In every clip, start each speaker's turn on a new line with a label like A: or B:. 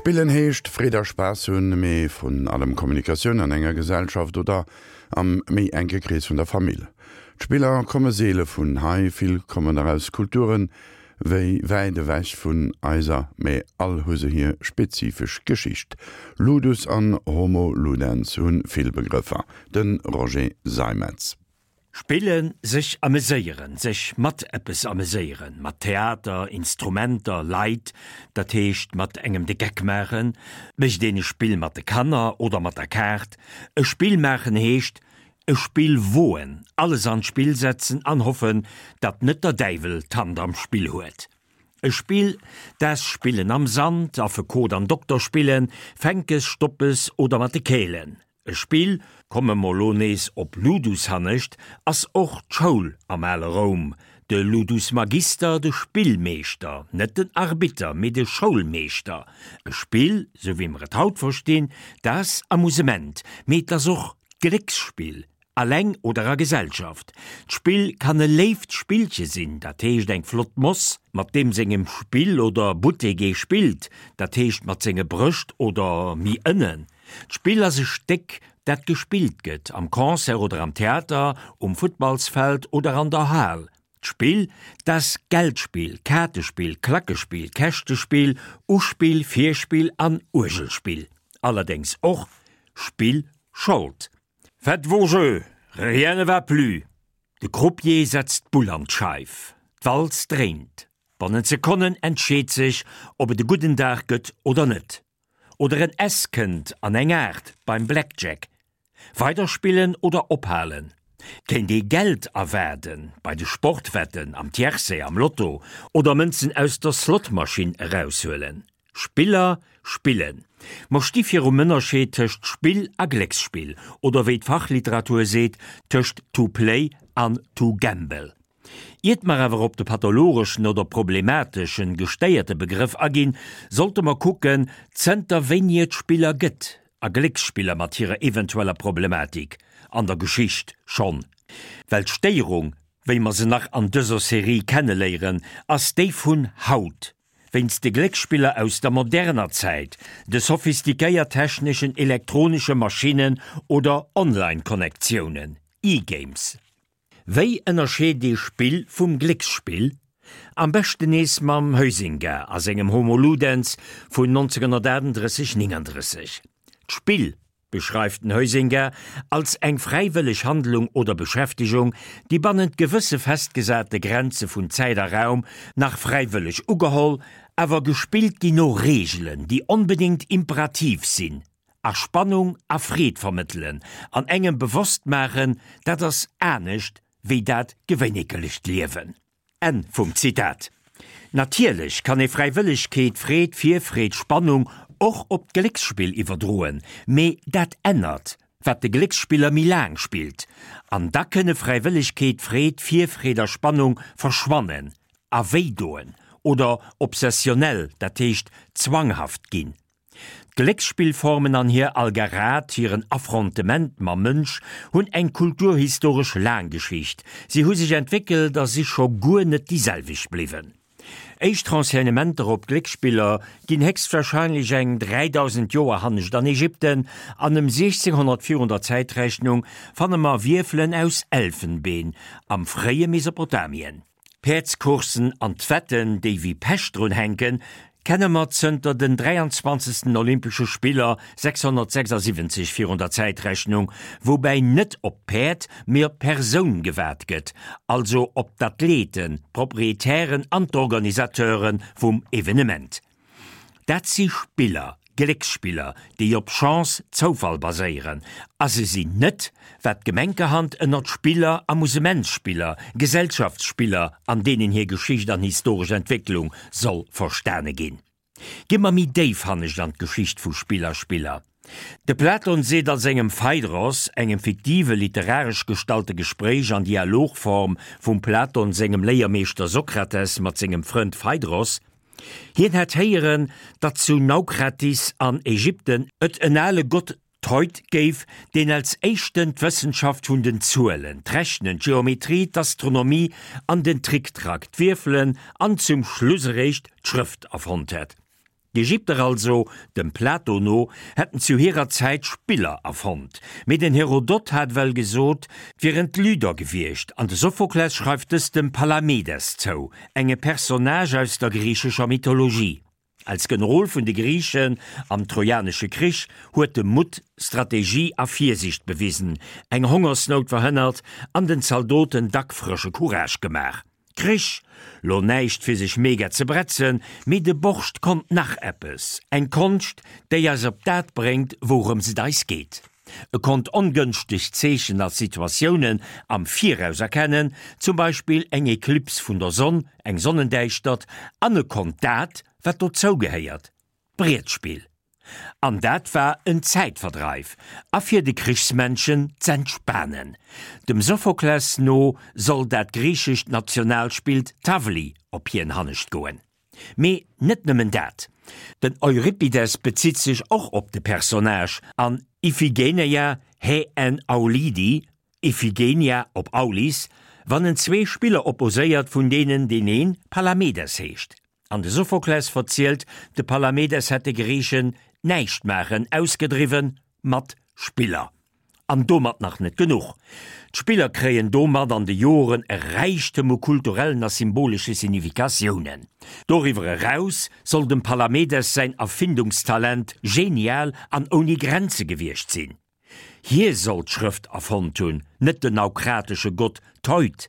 A: Spillen heescht Freed a Spaass hunn, mee vrun allem Kommunikatioun an enger Gesellschaft oder am méi enke Krees vun der Famill. D'Spiller komme seele vun hei, vill kommen der aus Kulturen wéi wäit ewech vun eiser, mee all hu se hir spezifesch Geschicht. Ludus an Homo Ludens hu vill Begrëffer. De Roger Seimetz.
B: Spillen, sech ameséieren, sech mat eppes ameséieren, mat Theater, Instrumenter, Leit, dat heescht mat engem de Geck maachen, mécht een e Spill mat de Kanner oder mat der Kaart. E Spill maachen heescht e Spill woen, alles an d'Spill setzen an hoffen, datt net der Däiwel d'Hand am Spill huet. E Spill, das Spillen am Sand, Affekot an Dokter spillen, Fänkes, Stoppes oder mat de Kälen. E Spill, komme mer lo nees op Ludus hannescht, ass och d'Schoul am ale Roum, de Ludus Magister, de Spillmeeschter, net den Arbitter, mee de Schoulmeeschter. E Spill, sou wéi mer et haut verstinn, dat ass Amusement, mee et ass och Glécksspill, Alleng oder a Gesellschaft. D'Spill kann e léift Spillche sinn, dat heescht eng flott Moss, mat deem sengem Spill oder Buttek ee spillt, dat heescht mat senge Brëscht oder méi ënnen. D'Spill ass e Stéck, dat gespillt gëtt, am Concert oder am Theater, um Futtballsfeld oder an der Hal. D'Spill, dat Geldspill, Kaartespill, Klackespill, Käschtespill, Uspill, Virspill an Uergelspill. Allerdéngs och Spill Schold. Faites vos jeux, rien ne va plus! De Croupier setzt d'Bull an d'Scheif. D'Walz dréint. Bannent Sekonnen entscheet sech, ob et e gudden Dag gëtt oder net. Oder en S kënnt an eng 8 beim Blackjack. Weiderspillen oder ophalen? Kéint ee Geld erwaarden bei de Sportwetten, am Tiercé, am Lotto oder Mënzen aus der Slotmaschinn eraushuelen? Spiller spillen. Mer sti virum Ënnerscheed tëscht Spill a Glécksspill, oder wéi d'Fachliteratur seet, tëscht to play an to gamble. Iert mer awer op de pathologeschen oder problemateschen, gestéierte Begrëff aginn, sollte mer kucken, zënter wéini et Spiller gëtt, a Glécksspiller mat hirer eventueller Problematik, an der Geschicht schonn. Well d'Stéierung, wéi mer se nach an dëser Serie kenneléieren, ass déi vun haut. Wéinst de Glécksspiller aus der moderner Zäit, de sophistiquéiert techneschen elektronesche Maschinnen oder Online-Connectiounen, E-Games. Wéi ënnerscheet ee Spill vum Glécksspill? Am beschten nees mam Huizinga a sengem Homo Ludens vun 1938, 39. D'Spill beschreift den Huizinga als eng fräiwëlleg Handlung oder Beschäftegung, déi bannent gewësse festgesate Grenze vun Zäit a Raum nach fräiwëlleg ugeholl, awer gespillt ginn no Reegelen, déi onbedéngt imperativ sinn a Spannung a Freed vermëttelen an engem bewosst maachen, dat ass anescht wéi dat gewéinekelecht Liewen. Enn vum Zitat. Natierlech kann ee Fräiwëllegkeet, Freed, Virfreed, Spannung och op d'Glécksspill iwwerdroen, mee dat ännert, wat de Glécksspiller méi laang spillt. An da kënne Fräiwëllegkeet, Freed, Virfreed a Spannung verschwannen a wéidoen oder obsessionell, dat heescht zwanghaft ginn. D'Glécksspillformen an hir Algarad, hiren Affrontement mam Mënsch, hunn eng kulturhistoresch laang Geschicht. Si hu sech entwéckelt a si scho guer net déi selwecht bliwwen. Éischt Renseignementer op Glécksspiller ginn héchstwahrscheinlech eng 3000 Joer hannescht an Ägypten an ëm 1600 virun der Zäitrechnung fanne mer Wierfelen aus Elfenbeen am fréie Mesopotamien. D'Päerdscoursen an d'Wetten, déi wéi Pech drun hänken, kenne mer zënter den 23. Olympesche Spiller 676 virun der Zäitrechnung, woubäi net op d'Päerd, mee op d'Persoun gewat gëtt, also op d'Athleten, d'Proprietären an d'Organisateure vum Evenement. Dat si Spiller, Glécksspiller, déi op Chance, Zoufall baséieren, a se sinn net, wat gemenkerhand ënnert Spiller, Amusementsspiller, Gesellschaftsspiller an deenen hir Geschicht an historesch Entwécklung soll verstane ginn. Gi mer méi déif hannescht an d'Geschicht vu Spill a Spiller. De Platon seet a sengem Phaidros, engem fiktive literaresch gestalte Gespréich an Dialogform vum Platon sengem Léiermeeschter Sokrates mat sengem Frënd Phaidros, Hien hätt héieren, datt zu Naukratis an Ägypten et en ale Gott Thoth géif, deen als éischten d'Wëssenschaft vun den Zuelen, d'Rechnen, d'Geometrie, d'Astronomie an den Tricktrack, d'Wierfelen an zum Schluss eréischt d'Schrëft erfonnt hätt. D'Ägypter also, dem Plato no, hätten zu hirer Zäit Spiller erfonnt. Mee den Herodot hat well gesot, 't wieren d'Lyder gewiescht, an de Sophokles schreift dëst dem Palamedes zou, enge Personnage aus der griichescher Mythologie. Als Generol vun de Griichen am Trojanesche Krich huet e Mutt, Strategie a Virsiicht bewisen, eng Hongersnout verhënnert an den Zaldoten dack frësche Courage gemaach. Krich, lo näischt fir sech mega ze bretzen, mee de Borscht konnt nach eppes, eng Konscht, déi eis op dat bréngt, wourëms et eis geet. E konnt ongënschteg Zeechen a Situatiounen am Viraus erkennen, zum Beispill eng Eklips vun der Sonn, eng Sonnendäischtert, an e konnt dat, wat dozou gehéiert, d'Brietspill. An dat war en Zäitverdreif a fir de Krichsmännchen z'entspanen. Dem Sophokles no soll dat griichescht Nationalspill d'Tavli op hien hannescht goen. Mee net nëmmen dat, den Euripides bezitt sech och op de Personnage an Iphigeneia he en Aulidi, Iphigenia op Aulis, wann en zwee Spiller opposéiert, vun deenen deen een Palamedes heescht. An de Sophokles verzielt, de Palamedes hätt de Griichen d'Näischtmaachen ausgedriwwen mat Spiller. An domat nach net genuch, D'Spiller kréien domat an de Joren e Räichtem u kulturellen a symbolesche Significatiounen. Doriwwer eraus soll dem Palamedes säin Erfindungstalent genial an ouni Grenze gewiescht sinn. Hie soll d'Schrëft erfonnt hunn, net den naukratesche Gott Theut.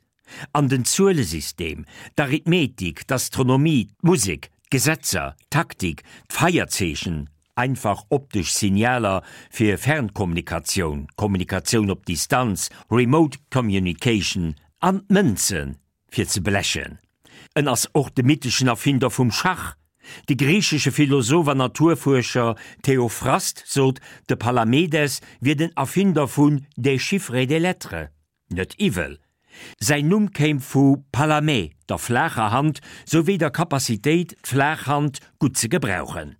B: An den Zuelesystem, d'Arithmetik, d'Astronomie, d'Musek, d'Gesetzer, d'Taktik, d'Feierzeechen, einfach optesch Signaler fir Fernkommunikatioun, Kommunikatioun op Distanz, Remote Communication, an d'Mënzen, fir ze blechen. En ass och de mytheschen Erfinder vum Schach. De griichesche Philosoph an Naturfuerscher Theophrast sot, de Palamedes wier den Erfinder vun des chiffres et des lettres. Net iwwel. Säin Numm kéim vu Palamè, der flaacher Hand, souwéi der Capacitéit, d'flaach Hand gutt ze gebrauchen.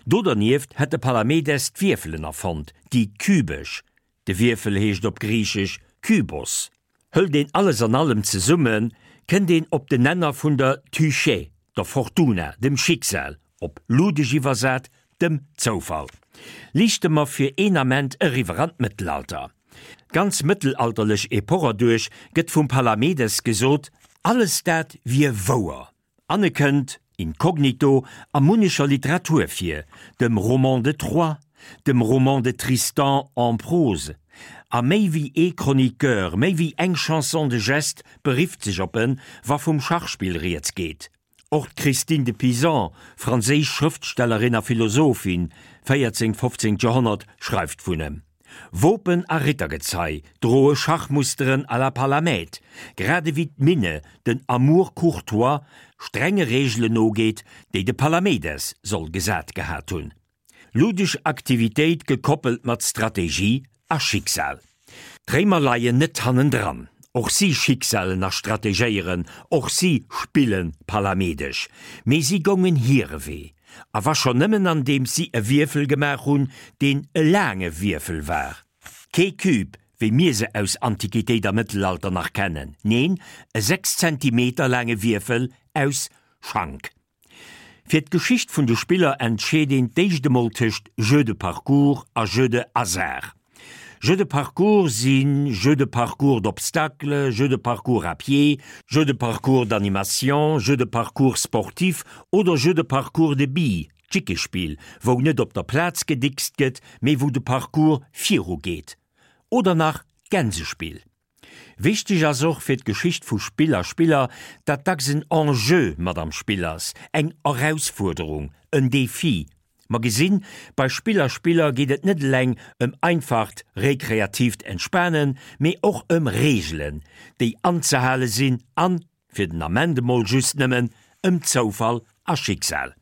B: Do dernieft hätt de Palamedes d'Wierfelen erfonnt, déi kübesch, de Wierfel heescht op Griichesch Kybos. Hëlt een alles an allem zesummen, kënnt een op den Nenner vun der Tyche, der Fortuna, dem Schicksal, op ludesch iwwersat, dem Zoufall. Liichte mer fir een Ament eriwwer an d'Mëttelalter. D'ganz mëttelalterlech Epoch erduerch gëtt vum Palamedes gesot, alles dat wier wouer. An e kënnt, incognito, a munnecher Literatur vir, dem Roman de Troyes, dem Roman de Tristan en prose. A méi wéi ee Chroniqueur, méi wéi eng Chanson de geste berifft sech op en, wa vum Schachspill rieds geet. Och d'Christine de Pizan, franséisch Schrëftstellerin a Philosophin, 14, 15. Joerhonnert, schreift vun em. Wopen a Rittergezei droe Schachmusteren à la Palamède, grad ewéi d'Minne den Amour courtois strenge Reegelen nogeet, déi de Palamedes soll gesat gehat hunn. Ludesch Aktivitéit gekoppelt mat Strategie a Schicksal. D'Réimer leien net hannendran. Och si schicksalen a strategéieren, och si spille palamedesch. Mee si goungen hire Wee. A wa schonn nëmmen andeems si e Wierfel gemaach hunn, deen e laange Wierfel war. Kee Cube, wéi mir se aus Antiquitéit a Mëttelalter nach kennen, neen, e 6 Zentimeter laange Wierfel aus Schank. Fir d'Geschicht vun de Spiller entscheet een d'éischt emol tëscht Jeu de parcours a Jeu de hasard. Jeu de parcours si Jeu de parcours d'obstacles, Jeu de parcours à pied, Jeu de parcours d'animation, Jeu de parcours sportif oder Jeu de parcours de billes, d'Jickespill, wou net op der Plaz gedickst gëtt, mee wou de Parcours viru geet. Oder nach d'Gänsespill. Wichteg ass och fir d'Geschicht vu Spill a Spiller, datt dacks en Enjeu mat am Spill ass, eng Erausfuerderung, en Defi. Mer gesinn, bei Spill a Spiller geet et net eleng ëm einfacht rekreatiivt Entspanen, mee och ëm Reegelen, déi anzehale sinn an, fir den Ament emol just nëmmen, ëm Zoufall a Schicksal.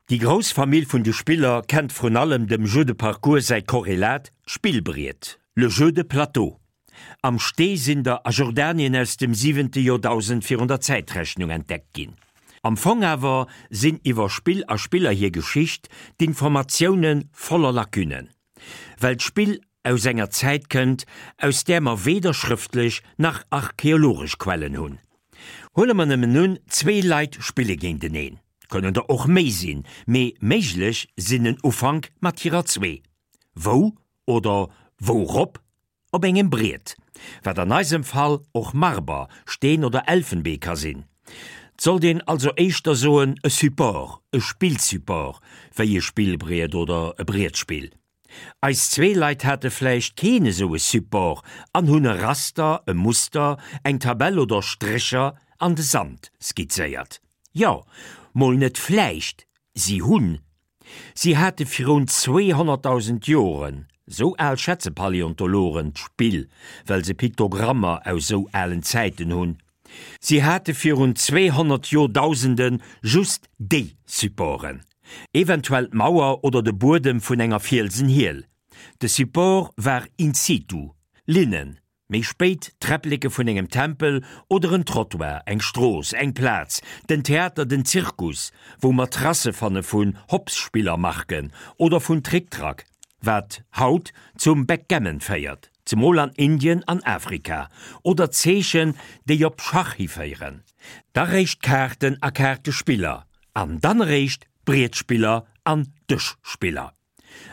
B: Déi grouss Famill vun de Spiller kennt vrun allem dem Jeu de parcours säi Korrelat, d'Spillbriet, le jeu de plateau. Am Stee sinn der a Jordanien aus dem siwente Joerdausend virun der Zäitrechnung entdeckt ginn. Am Fong awer sinn iwwer Spill a Spiller hir Geschicht d'Informatioune voller Lacunnen. Well d'Spill aus enger Zäit kënnt, aus där mer weder schrëftlech nach archeologesch Quellen hunn. Huele mer nëmmen un, zwee Leit spille géinteneen. Kënnen der och méi sinn, mee méiglech sinn en Ufank mat hirer zwee. Wou oder wourop? Op engem Briet, wat an eisem Fall och Marber, Steen oder Elfenbee ka sinn. 't sollt een also éischter soen e Support, e Spillsupport, wéi e Spillbriet oder e Brietspill. Eis zwee Leit hate vläicht keen esou e Support an hunn e Raster, e Muster, eng Tabell oder Strécher an de Sand skizzéiert. Jo, mol net vläicht, si hunn. Si hate virun 200.000 Joren, sou al schätze Paläontologen d'Spill, well se Piktogrammer aus sou alen Zäiten hunn, Si hate virun 200 Joerdausende just déi Supporten, eventuell d'Mauer oder de Buedem vun enger Fielsenhiel. De Support war in situ, Linnen, méi spéit d'Träppleke vun engem Tempel oder en Trottoir, eng Strooss, eng Plaz, den Theater, den Zirkus, wou mer Tracë fanne vun Hopsspillermarken oder vun Trick-Track, wat haut zum Backgammon féiert. Zemol an Indien an Afrika, oder Zeechen, déi op Schach hiféieren. Da réischt Kaarten a Kaartespiller, an dann eréischt Brietspiller an Dëschspiller.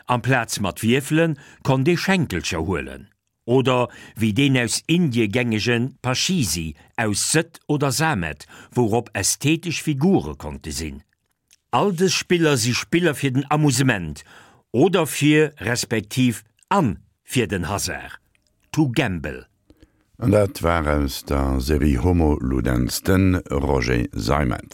B: Amplaz mat Wierfele konnt ee Schenkelcher huelen, oder wéi deen aus Indie gängege Pachisi aus Sëtt oder Samet, wourop ästhetesch Figure konnte sinn. All dës Spiller si Spiller fir den Amusement oder fir, respektiv an fir den Hasard, to gamble.
A: An dat war aus der Serie Homo Ludens de Roger Seimetz.